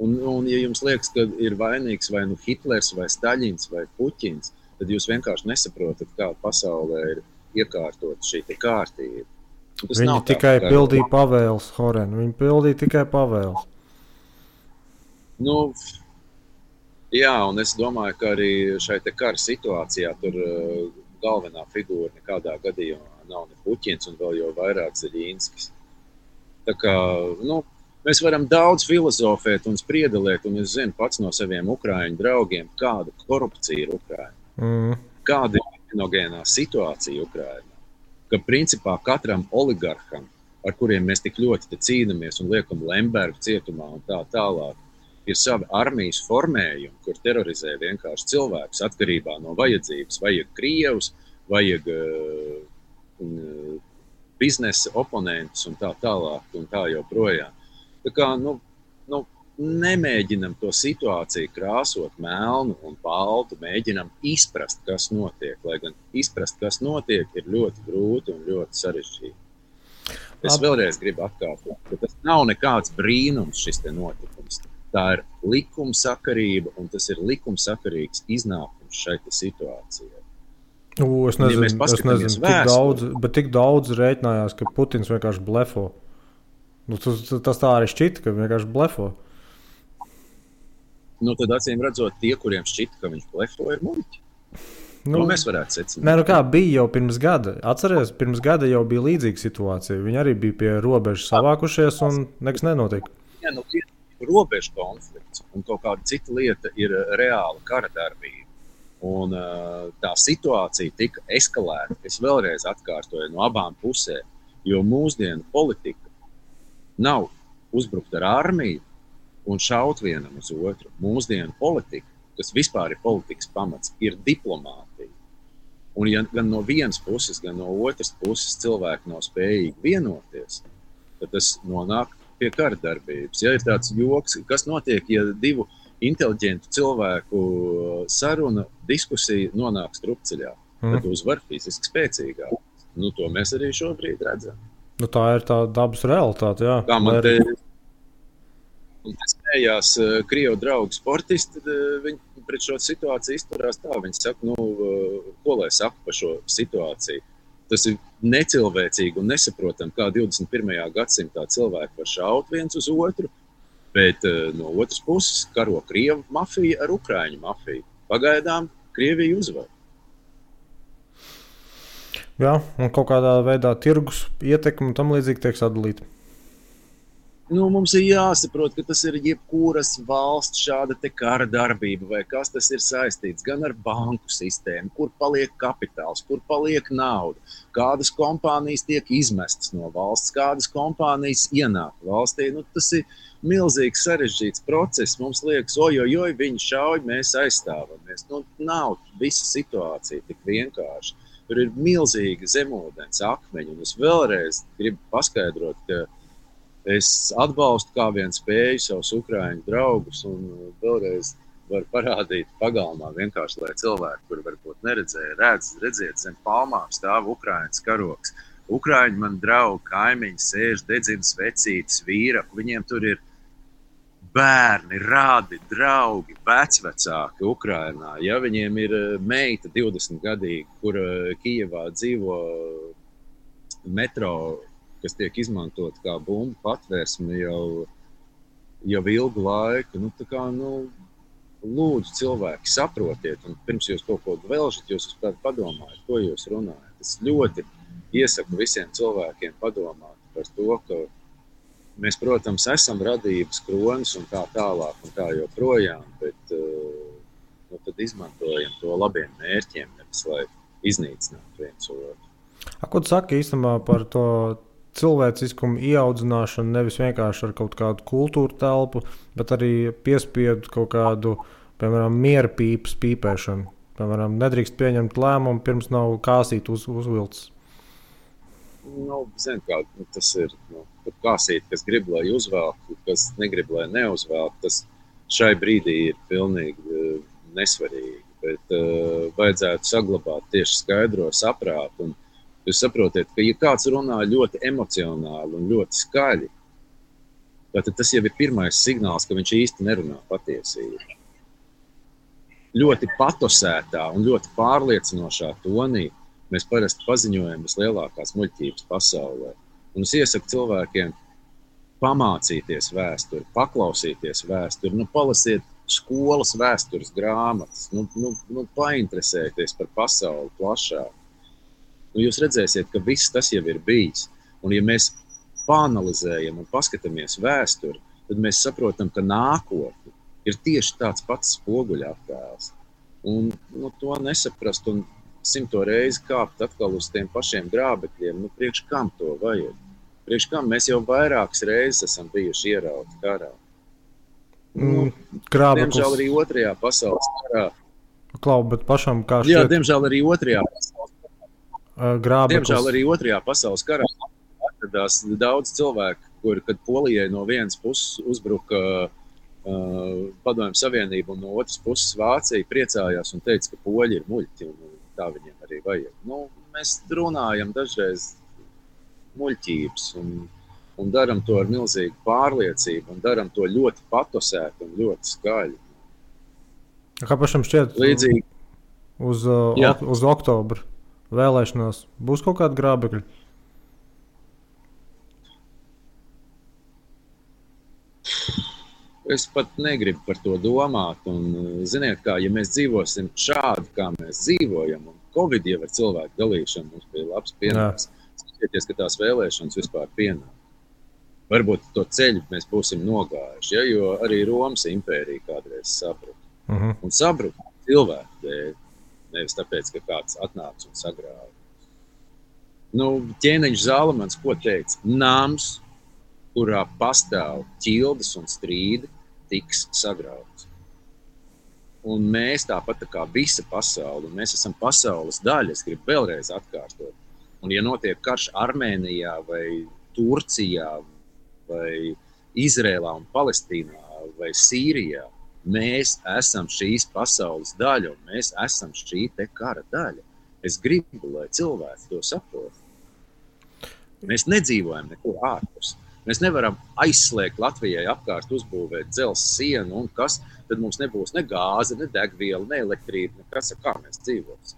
Un ja jums liekas, ka ir vainīgs vai Hitlers, vai Staļins, vai Puķins, tad jūs vienkārši nesaprotat, kā pasaulē ir iekārtot šī kārtība. Viņi tikai pildīja pavēles, Horen. Viņi pildīja tikai pavēles. Jā, un es domāju, ka arī šai te kara situācijā tur galvenā figūra nekādā gadījumā nav ne Puķins un vēl jau vairāk Zeļinskis. Tā kā, mēs varam daudz filozofēt un spriedelēt, un es zinu pats no saviem ukraiņu draugiem, kāda korupcija ir Ukrainā. Kāda ir kriminogenā situācija Ukrainā. Ka principā katram oligarham, ar kuriem mēs tik ļoti cīnāmies un liekam Lembergu cietumā un tā tālāk, ir savi armijas formējumi, kur terorizē vienkārši cilvēkus atkarībā no vajadzības. Vajag krievus, vajag biznesa oponentus un tā tālāk un tā joprojām. Tā kā, nemēģinam to situāciju krāsot melnu un baltu, mēģinam izprast, kas notiek, lai gan izprast, kas notiek, ir ļoti grūti un ļoti sarežģīti. Es vēlreiz gribu atkārtot, ka tas nav nekāds brīnums šis te notikums. Tā ir likumsakarība un tas ir likumsakarīgs iznākums šai situācijai. Es nezinu, tik daudz rēķinājās, ka Putins vienkārši blefo. Tas tā arī šķita, ka vienkārši blefo. Tad acīm redzot, tie, kuriem šķita, ka viņš blefo, ir muļķi. Mēs varētu secināt. Nē, kā bija jau pirms gada. Atceries, pirms gada jau bija līdzīga situācija. Viņi arī bija pie robežas savākušies un nekas nenotika. Jā, robežu konflikts un kaut kāda cita lieta ir reāla kara darbība. Un tā situācija tika eskalēta. Es vēlreiz atkārtoju no abām pusēm, jo mūsdienu politika nav uzbrukt ar armiju un šaut vienam uz otru. Mūsdienu politika, kas vispār ir politikas pamats, ir diplomātija. Un ja gan no vienas puses, gan no otras puses cilvēki nav spējīgi vienoties, tad tas nonāk pie kara darbības. Ja ir tāds joks, kas notiek, ja divu inteliģentu cilvēku saruna, diskusija nonāk strupceļā, tad uzvar fiziski spēcīgāk. To mēs arī šobrīd redzam. Tā ir tā dabas realitāte, jā. Kā man te smējās Krievu draugu sportisti, viņi pret šo situāciju izturās tā. Viņi saka, ko lai saka par šo situāciju. Tas ir necilvēcīgi un nesaprotam, kā 21. gadsimtā cilvēki var šaut viens uz otru, bet no otras puses karo Krievu mafija ar Ukraiņu mafiju. Pagaidām Krievija uzvar. Jā, un kaut kādā veidā tirgus ietekme un tam līdzīgi tiek sadalīta. Mums ir jāsaprot, ka tas ir jebkuras valsts šāda te kara darbība, vai kas tas ir saistīts gan ar banku sistēmu, kur paliek kapitāls, kur paliek nauda, kādas kompānijas tiek izmestas no valsts, kādas kompānijas ienāk valstī. Tas ir milzīgs sarežģīts process. Mums liekas, ojojoj, viņi šauj, mēs aizstāvamies. Nav visa situācija tik vienkārši. Tur ir milzīgi zemūdens akmeņi, un es vēlreiz gribu paskaidrot, ka es atbalstu kā vien spēju savus ukraiņu draugus un vēlreiz varu parādīt pagalmā vienkārši, lai cilvēki, kuri varbūt neredzēja, redziet, zem palmām stāv Ukraiņas karoks. Ukraiņi man draugi, kaimiņi sēž, dedzina svecītes, vīraku, viņiem tur ir bērni, rādi, draugi, vecvecāki Ukrainā. Ja viņiem ir meita 20-gadīga, kur Kijevā dzīvo metro, kas tiek izmantot kā bumbu patvērsme jau ilgu laiku. Lūdzu, cilvēki, saprotiet, un pirms jūs kaut ko velžat, jūs padomājat, ko jūs runājat. Es ļoti iesaku visiem cilvēkiem padomāt par to, ka mēs, protams, esam radības kronis un tā tālāk un tā joprojām, bet tad izmantojam to labiem mērķiem, nevis lai iznīcinātu viens otru. Ko tu saki īstenībā par to cilvēciskumu ieaudzināšanu, nevis vienkārši ar kaut kādu kultūru telpu, bet arī piespiedu kaut kādu, piemēram, miera pīpas pīpēšanu. Piemēram, nedrīkst pieņemt lēmumu, pirms nav kāsīt uzvilcis. Zin kā, tas ir kāsīt, kas grib, lai uzvelk, kas negrib, lai neuzvelk. Tas šai brīdī ir pilnīgi nesvarīgi, bet vajadzētu saglabāt tieši skaidro saprātu. Un jūs saprotiet, ka ja kāds runā ļoti emocionāli un ļoti skaļi, tad tas jau ir pirmais signāls, ka viņš īsti nerunā patiesību. Ļoti patosētā un ļoti pārliecinošā tonī mēs parasti paziņojam vislielākās muļķības pasaulē. Un es iesaku cilvēkiem pamācīties vēsturi, paklausīties vēsturi, palasiet skolas vēstures grāmatas, painteresēties par pasauli plašāk. Jūs redzēsiet, ka viss tas jau ir bijis. Un ja mēs pāanalizējam un paskatāmies vēsturi, tad mēs saprotam, ka nākotne ir tieši tāds pats spoguļattēls. Un to nesaprast un 100 reizi kāpt atkal uz tiem pašiem grābekļiem, priekš kam to vajag? Priekš kam mēs jau vairākas reizes esam bijuši ierauti karā? Diemžēl arī otrajā pasaules karā. Klau, bet pašam kā šķiet? Jā, diemžēl arī otrajā pasaules karā. grābeklis. Diemžēl arī Otrajā pasaules karā atradās daudz cilvēku, kuri, kad Polijai no vienas puses uzbruka Padomju Savienību un no otras puses Vācija, priecājās un teica, ka poļi ir muļķi un tā viņiem arī vajag. Nu, mēs runājam dažreiz muļķības un daram to ar milzīgu pārliecību un daram to ļoti patosēt un ļoti skaļi. Kā pašam šķiet, līdzīgi uz oktobra vēlēšanās būs kaut kāda grābekļa? Es pat negribu par to domāt. Un, ziniet, kā, ja mēs dzīvosim šādi, kā mēs dzīvojam, un Covid jau ar cilvēku dalīšanu mums bija labs pienāks. Skatieties, ka tās vēlēšanas vispār pienāk. Varbūt to ceļu mēs būsim nogājuši, ja, jo arī Romas impērija kādreiz sabruka. Un sabruka cilvēku dēļ, nevis tāpēc, ka kāds atnāca un sagrāva. Nu, ķēniņš Zalamans ko teica? Nams, kurā pastāv ķildes un strīdi, tiks sagrauts. Un mēs tāpat tā kā visa pasaule, un mēs esam pasaules daļa, es gribu vēlreiz atkārtot. Un ja notiek karš Armēnijā vai Turcijā vai Izrēlā un Palestīnā vai Sīrijā, mēs esam šīs pasaules daļa un mēs esam šī te kara daļa. Es gribu, lai cilvēks to saprot. Mēs nedzīvojam nekur ārpus. Mēs nevaram aizslēgt Latvijai apkārt uzbūvēt dzelzs sienu un kas, tad mums nebūs ne gāze, ne degviela, ne elektrība, nekas, kā mēs dzīvosim.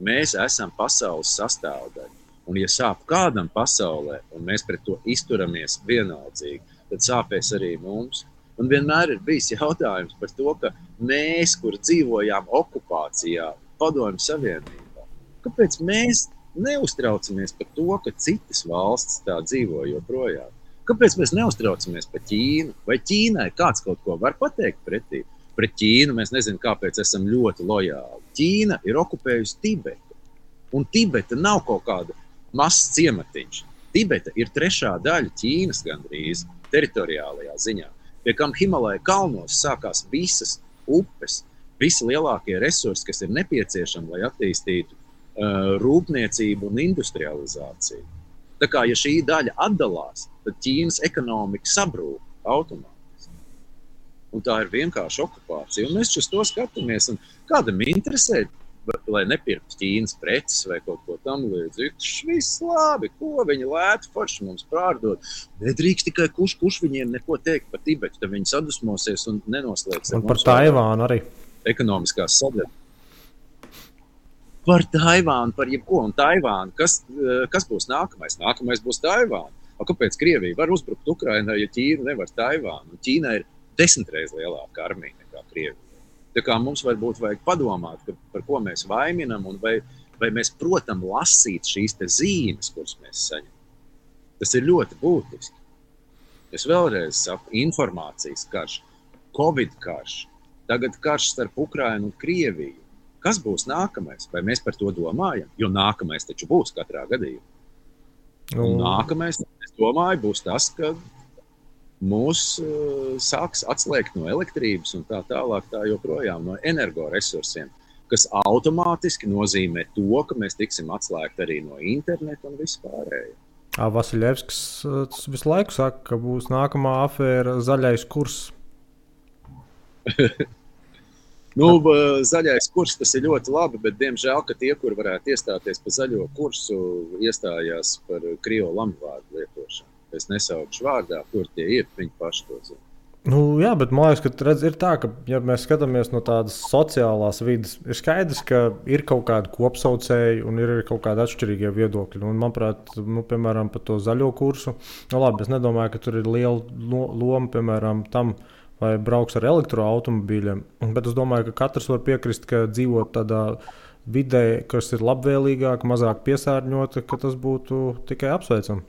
Mēs esam pasaules sastāvdaļa. Un ja sāp kādam pasaulē un mēs pret to izturamies vienaldzīgi, tad sāpēs arī mums. Un vienmēr ir bijis jautājums par to, ka mēs, kur dzīvojām okupācijā, Padomju Savienībā, kāpēc mēs neuztraucamies par to, ka citas valstis tā dzīvo joprojām? Kāpēc mēs neuztraucamies par Ķīnu? Vai Ķīnai kāds kaut ko var pateikt pretī? Pret Ķīnu mēs nezinām, kāpēc esam ļoti lojāli. Ķīna ir okupējusi Tibetu. Un Tibeta nav kaut kāda mazs ciematiņš. Tibeta ir 3. daļa Ķīnas gandrīz teritoriālajā ziņā. Pie kam Himalaja kalnos sākās visas upes, visi lielākie resursi, kas ir nepieciešami, lai attīstītu rūpniecību un industrializāciju. Tā kā, ja šī daļa atdalās, tad Ķīnas ekonomika sabrūk automātiski. Un tā ir vienkārši okupācija. Un mēs uz to skatāmies. Un kādam interesē, lai nepirktu Ķīnas preces vai kaut ko tam līdzīgu. Viss labi, ko viņi lētu forši mums pārdot. Nedrīkst tikai kurš viņiem neko teikt par Tibetu, tad viņi sadusmosies un nenoslēgs. Un par Taivānu arī. Ekonomiskās sadarbības. Par Taivānu, par jebko. Un Taivānu, kas būs nākamais? Nākamais būs Taivāna. Kāpēc Krievija var uzbrukt Ukrainai, ja Ķīna nevar Taivānu? Ķīna ir 10 reizes lielāka armija nekā Krievija. Tā kā mums varbūt vajag padomāt, par ko mēs vaiminam un vai mēs protam lasīt šīs te zīmes, kuras mēs saņemam. Tas ir ļoti būtiski. Es vēlreiz saku, informācijas karš, Covid karš, tagad karš starp Ukrainu un Krieviju. Kas būs nākamais? Vai mēs par to domājam? Jo nākamais taču būs katrā gadījumā. Un nākamais, es domāju, būs tas, ka mūs sāks atslēgt no elektrības un tā tālāk, tā joprojām no energoresursiem, kas automātiski nozīmē to, ka mēs tiksim atslēgti arī no interneta un vispārējo. Vasiljevskis visu laiku saka, ka būs nākamā afēra zaļais kurs. Zaļais kurs tas ir ļoti labi, bet diemžēl, ka tie, kur varētu iestāties par zaļo kursu, iestājās par krievu lamvārdu lietošanu. Es nesaukšu vārdā, kur tie ir, viņi paši to zina. Jā, bet man liekas, ka ir tā, ka, ja mēs skatāmies no tādas sociālās vidas, ir skaidrs, ka ir kaut kādi kopsaucēji un ir kaut kādi atšķirīgie viedokļi. Un, manuprāt, piemēram, par to zaļo kursu, labi, es nedomāju, ka tur ir liela loma, piemēram, tam, vai brauks ar elektroautomobīļiem. Bet es domāju, ka katrs var piekrist, ka dzīvot tādā vidē, kas ir labvēlīgāka, mazāk piesārņota, ka tas būtu tikai apsveicami.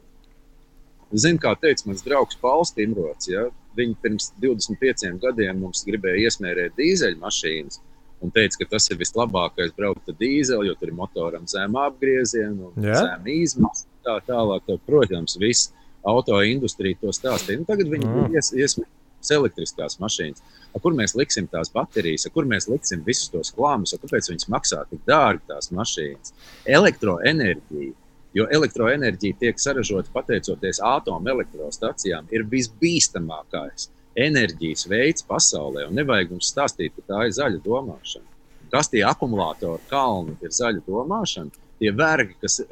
Zinu, kā teica mans draugs Pauls Timrots, ja? Viņi pirms 25 gadiem mums gribēja iesmērēt dīzeļmašīnas un teica, ka tas ir vislabākais braukt ar dīzeli, jo tur ir motoram zem apgriezienu un zem izmaksas. Tā tālāk, protams, viss autoindustrija to stāstīja. Tagad viņi iesmērēt būs elektriskās mašīnas. Kur mēs liksim tās baterijas, kur mēs liksim visus tos klāmus, kāpēc viņas maksā tik dārgi tās mašīnas. Elektroenerģija, jo elektroenerģija tiek saražota pateicoties atomelektrostacijām, ir visbīstamākais enerģijas veids pasaulē. Un nevajag mums stāstīt, ka tā ir zaļa domāšana. Kas tie akumulātori kalni ir zaļa domāšana? Tie vergi, kas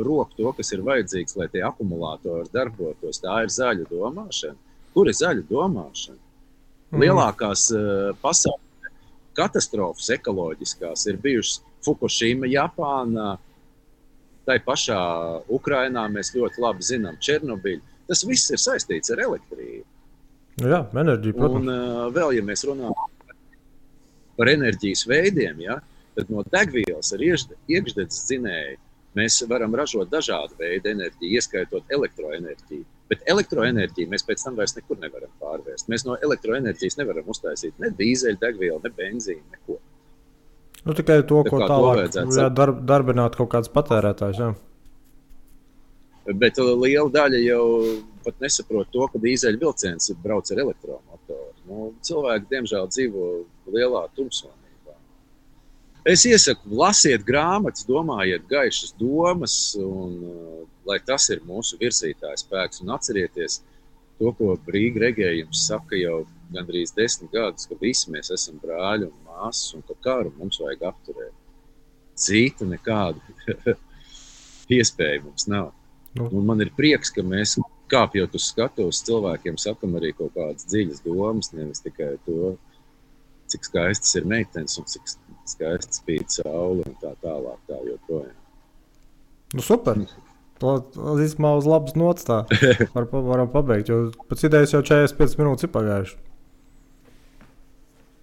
rok to, kas ir vajadzīgs, lai tie akumulātori darbotos, tā ir zaļa domāšana. Kur ir zaļa domāšana? Lielākās pasaules katastrofas ekoloģiskās ir bijušas Fukushima, Japānā, tai pašā Ukrainā mēs ļoti labi zinām Černobiļu. Tas viss ir saistīts ar elektrību. Jā, enerģija, protams. Un vēl, ja mēs runājam par enerģijas veidiem, ja, tad no degvielas ar iekšdedzes dzinēju mēs varam ražot dažādu veidu enerģiju, ieskaitot elektroenerģiju. Bet elektroenerģiju mēs pēc tam vairs nekur nevaram pārvērst. Mēs no elektroenerģijas nevaram uztaisīt ne dīzeļdegvielu, ne benzīnu, neko. Nu, tikai to, ko tālāk darbināt kaut kāds patērētājs. Jā. Bet liela daļa jau pat nesaprot to, ka dīzeļvilciens brauc ar elektromotoru. Nu, cilvēki, diemžēl, dzīvo lielā tumsonībā. Es iesaku, lasiet grāmatas, domājiet gaišas domas, un lai tas ir mūsu virzītājs spēks. Un atcerieties to, ko Rīga regējums saka jau gandrīz 10 gadus, ka visi mēs esam brāļi un māsas, un ka karu mums vajag apturēt. Cita nekāda iespēja mums nav. Un man ir prieks, ka mēs kāpjot uz skatuves cilvēkiem sakam arī kaut kādas dziļas domas, nevis tikai to, cik skaistas ir meitenes un cik skaists spīd saule un tā tālāk, tā joprojām. Nu, super! Tas īstenībā uz labas nots tā varam pabeigt, jo pēc idejas jau 45 minūtes ir pagājuši.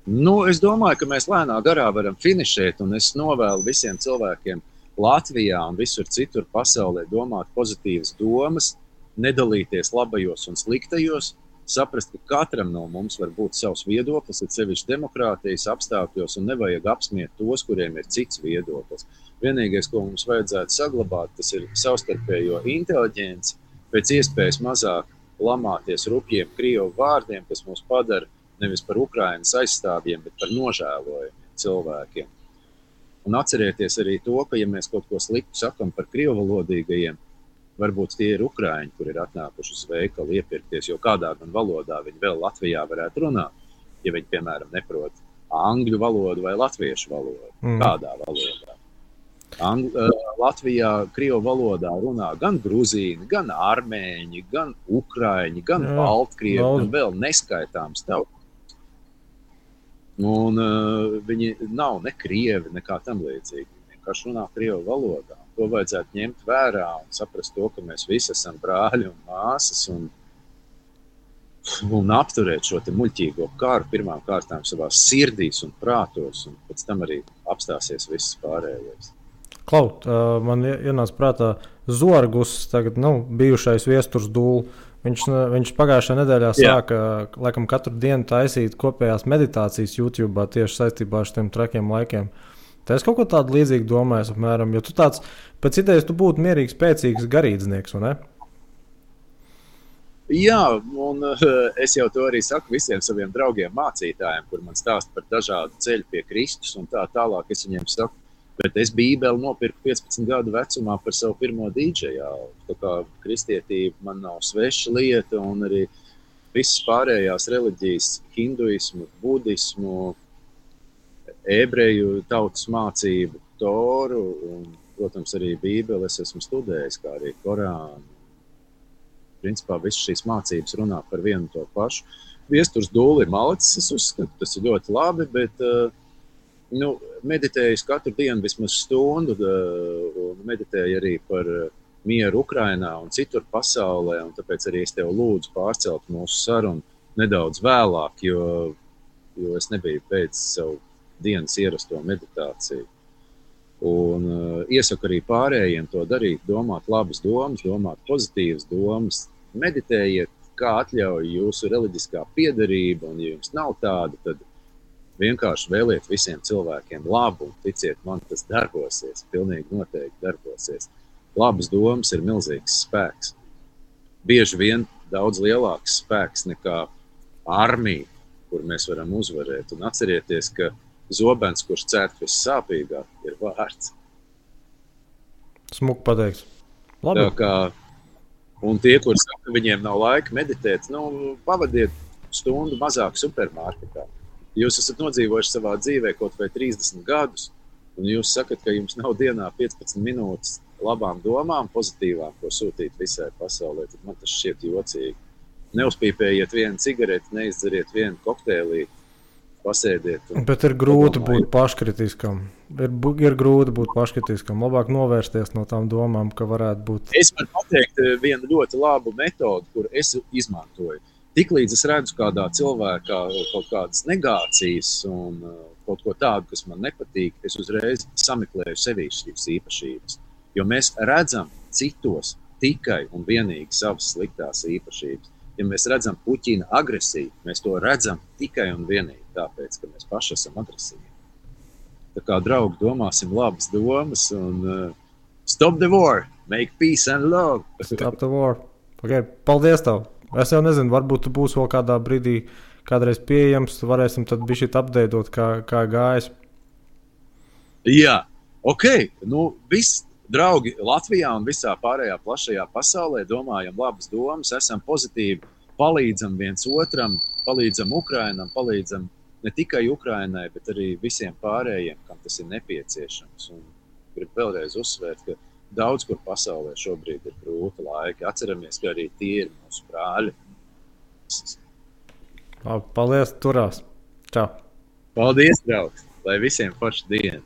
Nu, es domāju, ka mēs lēnā garā varam finišēt, un es novēlu visiem cilvēkiem Latvijā un visur citur pasaulē domāt pozitīvas domas, nedalīties labajos un sliktajos, saprast, ka katram no mums var būt savs viedoklis, ir sevišķi demokrātijas apstākļos, un nevajag apsmiet tos, kuriem ir cits viedoklis. Vienīgais, ko mums vajadzētu saglabāt, tas ir savstarpējo inteliģenci, pēc iespējas mazāk lamāties rupjiem krievu vārdiem, kas mūs padara nevis par Ukrainas aizstāvjiem, bet par nožēlojumiem cilvēkiem. Un atcerieties arī to, ka, ja mēs kaut ko sliktu sakam par krievalodīgajiem, varbūt tie ir ukraiņi, kur ir atnākuši uz veikalu iepirkties, jo kādā gan valodā viņi vēl Latvijā varētu runāt, ja viņi, piemēram, neprot angļu valodu vai latviešu valodu. Kādā valodā? Latvijā krievu valodā runā gan gruzīni, gan armēņi, gan ukraiņi, gan baltkrievi, gan vēl neskaitāms tautas. Un viņi nav ne krievi, nekā tam līdzīgi. Viņi vienkārši runā krievu valodā. To vajadzētu ņemt vērā un saprast to, ka mēs visi esam brāļi un māsas un apturēt šo te muļķīgo karu pirmām kārtām savās sirdīs un prātos, un pēc tam arī apstāsies viss pārējais. Klaut, man ienāca prātā Zorgus, tagad, bijušais Viesturs Dūl. Viņš pagājušajā nedēļā sāka, laikam, katru dienu taisīt kopējās meditācijas YouTube'ā tieši saistībā ar šiem trakiem laikiem. Tā es kaut ko tādu līdzīgu domāju, apmēram, jo tu tāds, pēc idejas, tu būtu mierīgs, spēcīgs garīdznieks, vai ne? Jā, un es jau to arī saku visiem saviem draugiem mācītājiem, kur man stāsta par dažādu ceļu pie Kristus un tā tālāk. Es viņiem saku, bet es Bībeli nopirku 15 gadu vecumā par savu pirmo dīdžejā. Tā kā kristietība man nav sveša lieta, un arī visas pārējās reliģijas, hinduismu, budismu, ebreju tautas mācību, Toru un, protams, arī Bībeli es esmu studējis, kā arī Korānu. Principā visas šīs mācības runā par vienu to pašu. Viesturs Dūli ir malicis, es uzskatu, tas ir ļoti labi, bet meditēju katru dienu vismaz stundu un meditēju arī par mieru Ukrainā un citur pasaulē, un tāpēc arī es tev lūdzu pārcelt mūsu sarunu nedaudz vēlāk, jo es nebiju pēc savu dienas ierasto meditāciju. Un iesaku arī pārējiem to darīt, domāt labas domas, domāt pozitīvas domas, meditējiet, kā atļauj jūsu reliģiskā piederība, un ja jums nav tāda, tad vienkārši vēliet visiem cilvēkiem labu, un ticiet man, tas darbosies, pilnīgi noteikti darbosies. Labas domas ir milzīgs spēks. Bieži vien daudz lielāks spēks nekā armija, kur mēs varam uzvarēt. Un atcerieties, ka zobens, kurš cērt vissāpīgāk, ir vārds. Smuki pateikts. Labi. Tā kā, un tie, kur saka, ka viņiem nav laika meditēt, pavadiet stundu mazāk supermarketā. Jūs esat nodzīvojuši savā dzīvē kaut vai 30 gadus, un jūs sakat, ka jums nav dienā 15 minūtes labām domām, pozitīvām, ko sūtīt visai pasaulē, tad man tas šķiet jocīgi. Neuzpīpējiet vienu cigareti, neizdzeriet vienu kokteilīti, pasēdiet. Bet ir grūti būt paškritiskam. Ir grūti būt paškritiskam. Labāk novērsties no tām domām, ka varētu būt. Es varu pateikt vienu ļoti labu metodu, kur es izmantoju. Tiklīdz es redzu kādā cilvēkā kaut kādas negācijas un kaut ko tādu, kas man nepatīk, es uzreiz sameklēju sevī šīs īpašības. Jo mēs redzam citos tikai un vienīgi savas sliktās īpašības. Ja mēs redzam Puķina agresiju, mēs to redzam tikai un vienīgi tāpēc, ka mēs paši esam agresīvi. Tā kā, draugi, domāsim labas domas un stop the war, make peace and love. Stop the war. Okay, paldies tev. Es jau nezinu, varbūt tu būsi vēl kādā brīdī kādreiz pieejams, varēsim tad bišķīt apdeidot, kā gājas. Jā, viss. Draugi Latvijā un visā pārējā plašajā pasaulē domājam labas domas, esam pozitīvi, palīdzam viens otram, palīdzam Ukrainam, palīdzam ne tikai Ukrainai, bet arī visiem pārējiem, kam tas ir nepieciešams. Un gribu vēlreiz uzsvērt, ka daudz kur pasaulē šobrīd ir grūti laiki. Atceramies, ka arī tie ir mūsu brāļi. Paldies, turās. Čau. Paldies, draugs. Lai visiem forša diena.